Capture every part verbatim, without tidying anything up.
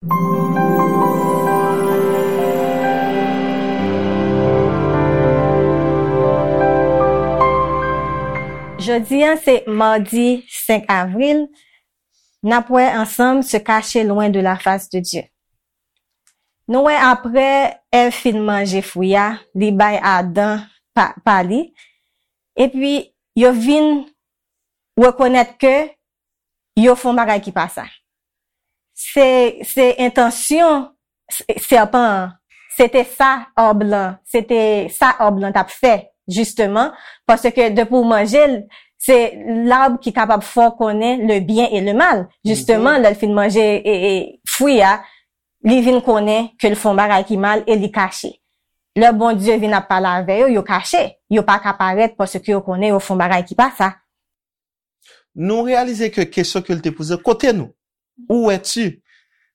Jodi a se madi senk avril, n ap wè ansanm Se cacher loin de la face de Dieu. Nou wè apre Èv fin manje fwi a, li bay Adan pa, pa li, epi yo vin rekonèt ke yo fè yon bagay ki pa sa. Se, se entansyon s-, sèpan an, se te sa òb lan, se te sa òb lan t ap fè, jisteman, paske depi w manje l, se l'arbre ki kapab fè w konnen le bien et le mal. Jisteman, lè l fin manje e, e, fwi a, li vin konnen ke l fè yon bagay ki mal e li kache. Lè Bondye vin ap pale avè yo, yo kache. Yo pa ka parèt paske yo konnen yo fè yon bagay ki pa sa. Nou reyalize ke kesyon ke l te poze, kote nou? Où es-tu?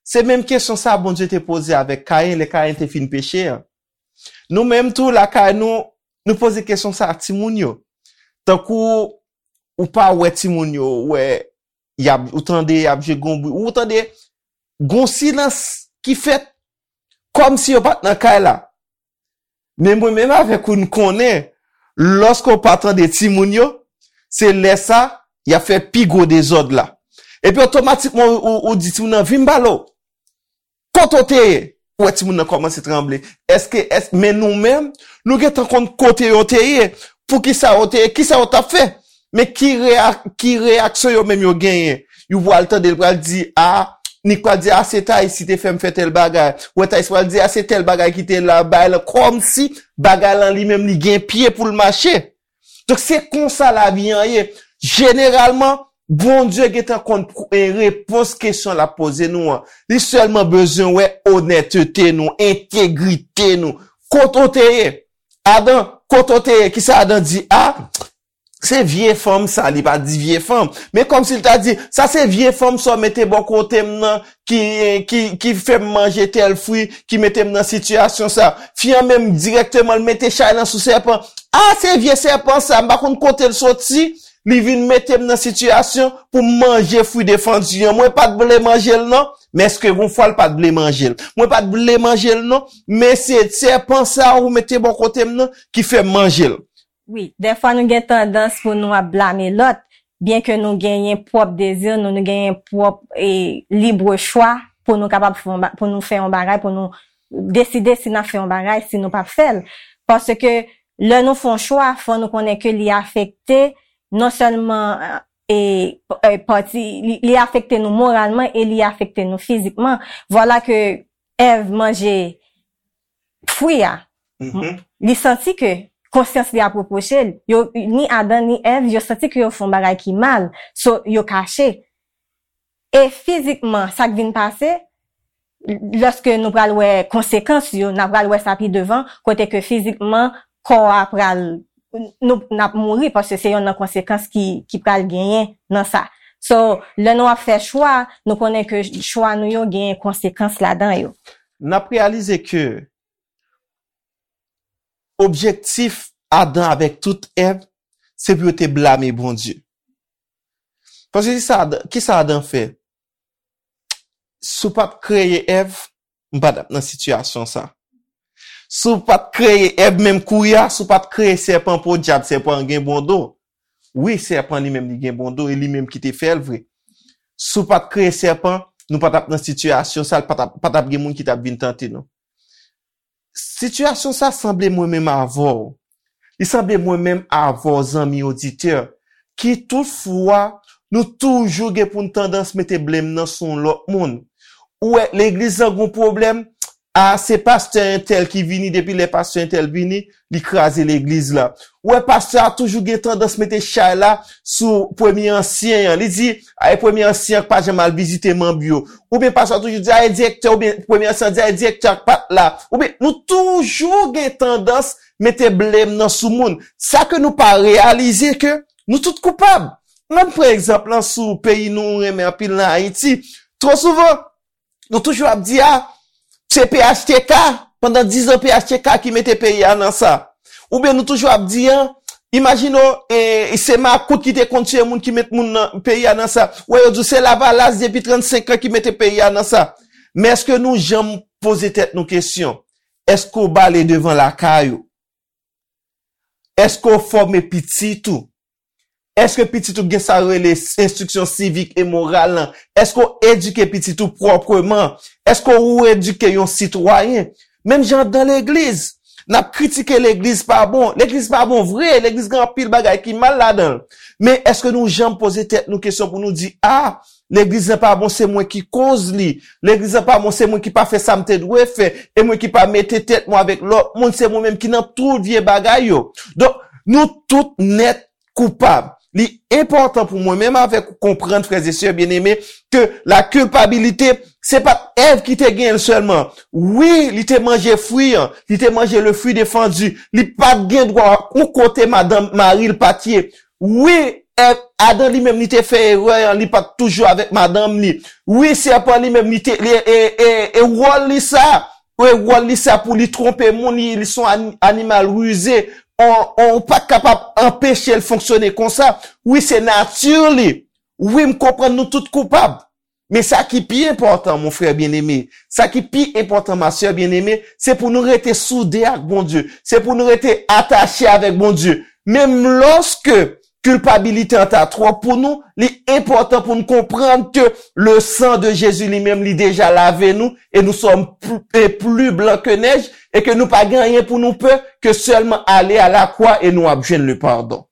Se menm kesyon sa Bondye te poze avèk Kayen lè Kayen te fin peche an. Nou menm tou lakay nou, nou poze kesyon sa a timoun yo. Tankou ou pa wè timoun yo, ou wè y ap, ou tande y ap jwe gon bri, ou tande gon silans ki fèt kòmsi yo pa t nan kay la. Men mwen menm avèk ou n konnen, lòske w pa tande timoun yo, se lè sa y ap fè pi gwo dezòd la. Epi otomatikman ou, ou, ou di timoun nan vin m pale w. Kote w te ye? Ou wè timoun nan kòmanse tranble. Èske, èske, men nou menm, nou gentan konn kote yo te ye. Poukisa yo te ye? Kisa yo t ap fè? Men ki, reya, ki reyaksyon yo menm yo genyen? Yo pral tande l pral di, a, Nik pral di, a, se Tayis ki te fè m fè tèl bagay. Ou wè Tayis pral di, a, se tèl bagay ki te la, bagay lan, kòmsi bagay lan li menm li gen pye pou l mache. Donk se konsa lavi an ye. Jeneralman, Bondye gentan konn repons kesyon l ap poze nou an. Li sèlman bezwen wè onètete nou, entegrite nou. Kote w te ye? Adan, kote w te ye? Kisa Adan di? A, se vye fanm sa, li pa di vye fanm. Men kòmsi l ta di, sa se vye fanm sa w mete bò kote m nan, ki, ki, ki fè m manje tèl fwi, ki mete m nan sitiyasyon sa. Fi an menm dirèkteman l mete chay lan sou sèpan. A, se vye sèpan sa, m pa konn kote l soti, li vin mete m nan sitiyasyon pou m manje fwi defandi an. Mwen pa t vle manje l non, men èske gon fwa l pa t vle manje l? Mwen pa t vle manje l non, men se sèpan sa ou mete bò kote m nan ki fè m manje l. Wi, dèfwa nou gen tandans pou nou ap blame lòt, byenke nou genyen pwòp dezi nou, nou genyen pwòp e, libre chwa pou nou kapab fè yon ba- pou nou fè yon bagay, pou nou deside si n ap fè yon bagay, si nou p ap fè l. Paske lè nou fè yon chwa, fò nou konnen ke li afekte non sèlman e, e, pati, li, li afekte nou moralman e li afekte nou fizikman. Vwala ke Èv manje fwi a, li santi ke konsyans li ap repwoche l. Yo, ni Adan ni Èv, yo santi ke yo fè yon bagay ki mal. So, yo kache. E fizikman, sa k vin pase, lòske nou pral wè konsekans yo, n a pral wè sa pi devan, kote ke fizikman, kò a pral, nou, n ap mouri, paske se yonn nan konsekans ki, ki pral genyen nan sa. So, lè nou ap fè chwa, nou konnen ke chwa nou yo genyen konsekans ladan yo. N ap reyalize ke objektif Adan avèk tout Èv, se pou yo te blame Bondye. Paske kisa Adan, kisa Adan fè? Si w pa t kreye Èv, m pa t ap nan sitiyasyon sa. Si w pa t kreye Èv menm kounye a, si w pa t kreye sèpan, po dyab, sèpan an gen bon do. Wi, sèpan li menm li gen bon do, e li menm ki te fè l vre. Si w pa t kreye sèpan, nou pa t ap nan sitiyasyon sa, pa t ap, pa t ap gen moun ki t ap vin tante nou. Sitiyasyon sa sanble mwen menm avè w. Li sanble mwen menm avè w, zanmi oditè, ki toutfwa nou toujou gen pou n tandans mete blame nan sou yon lòt moun. Ou wè, legliz lan gon pwoblèm, a, se pastè entèl ki vini, depi lè pastè entèl vini, li kraze legliz la. Ou wè, pastè a toujou gen tandans mete chay la sou premye ansyen an. Li di, a, e premye ansyen an k pa janm al vizite manm yo. Oubyen pastè a toujou di, a, e direktè, oubyen premye ansyen an di, a, e direktè a k pa t la. Oubyen nou toujou gen tandans mete blame nan sou moun. Sa ke nou pa reyalize ke nou tout koupab. Ann pran egzanp lan sou peyi nou renmen anpil lan, Ayiti. Twò souvan, nou toujou ap di, a, se P H T K, pandan diz an P H T K ki mete peyi a nan sa. Oubyen nou toujou ap di, a, imajine w, e, se makout ki te konn tiye moun ki met moun nan peyi a nan sa. Ou wè yo di w se Lavalas depi trannsenk an ki mete peyi a nan sa. Men èske nou janm poze tèt nou kesyon? Èske w bale devan lakay ou? Èske w fòme pitit ou? Èske pitit ou gen sa yo rele enstriksyon sivik e moral lan? Èske w edike pitit ou pwòpman? Èske w edike yon sitwayen? Menm jan dan legliz, n ap kritike legliz pa bon. Legliz pa bon vre, legliz gen anpil bagay ki mal ladan l. Men èske nou janm poze tèt nou kesyon pou nou di, a, legliz lan pa bon, se mwen ki koz li. Legliz lan pa bon, se mwen ki pa fè sa m te dwe fè. E mwen ki pa mete tèt mwen avèk lòt moun, se mwen menm ki nan tout vye bagay yo. Donk, nou tout nèt koupab. Li enpòtan pou mwen menm avèk ou konprann, frè e sè byeneme, ke la kilpabilite, se pa t Èv ki te genyen l sèlman. Wi, li te manje fwi an, li te manje le fruit défendu, li pa t gen dwa yon kote madanm mari l pa t ye. Wi, Èv, Adan li menm li te fè erè an, li pa t toujou avèk madanm li. Wi, sèpan li menm li te, li, e, e, e wòl li sa, e wòl li sa pou li twonpe moun, li, li se yon ani-, animal rize. On, on pa kapab anpeche l fonksyone konsa. Wi, se nati li. Wi, m konprann nou tout koupab. Men sa ki pi enpòtan, mon frè byeneme, sa ki pi enpòtan, ma sè byeneme, se pou nou rete soude ak Bondye, se pou nou rete atache avèk Bondye. Menm lòske kilpabilite an ta twòp pou nou, li enpòtan pou nou konprann ke le sang de Jésus li menm, li deja lave nou, e nous sommes plus, et plus blancs que neige, e ke nou pa gen anyen pou nou pè ke sèlman ale a la kwa e nou ap jwenn le pardon.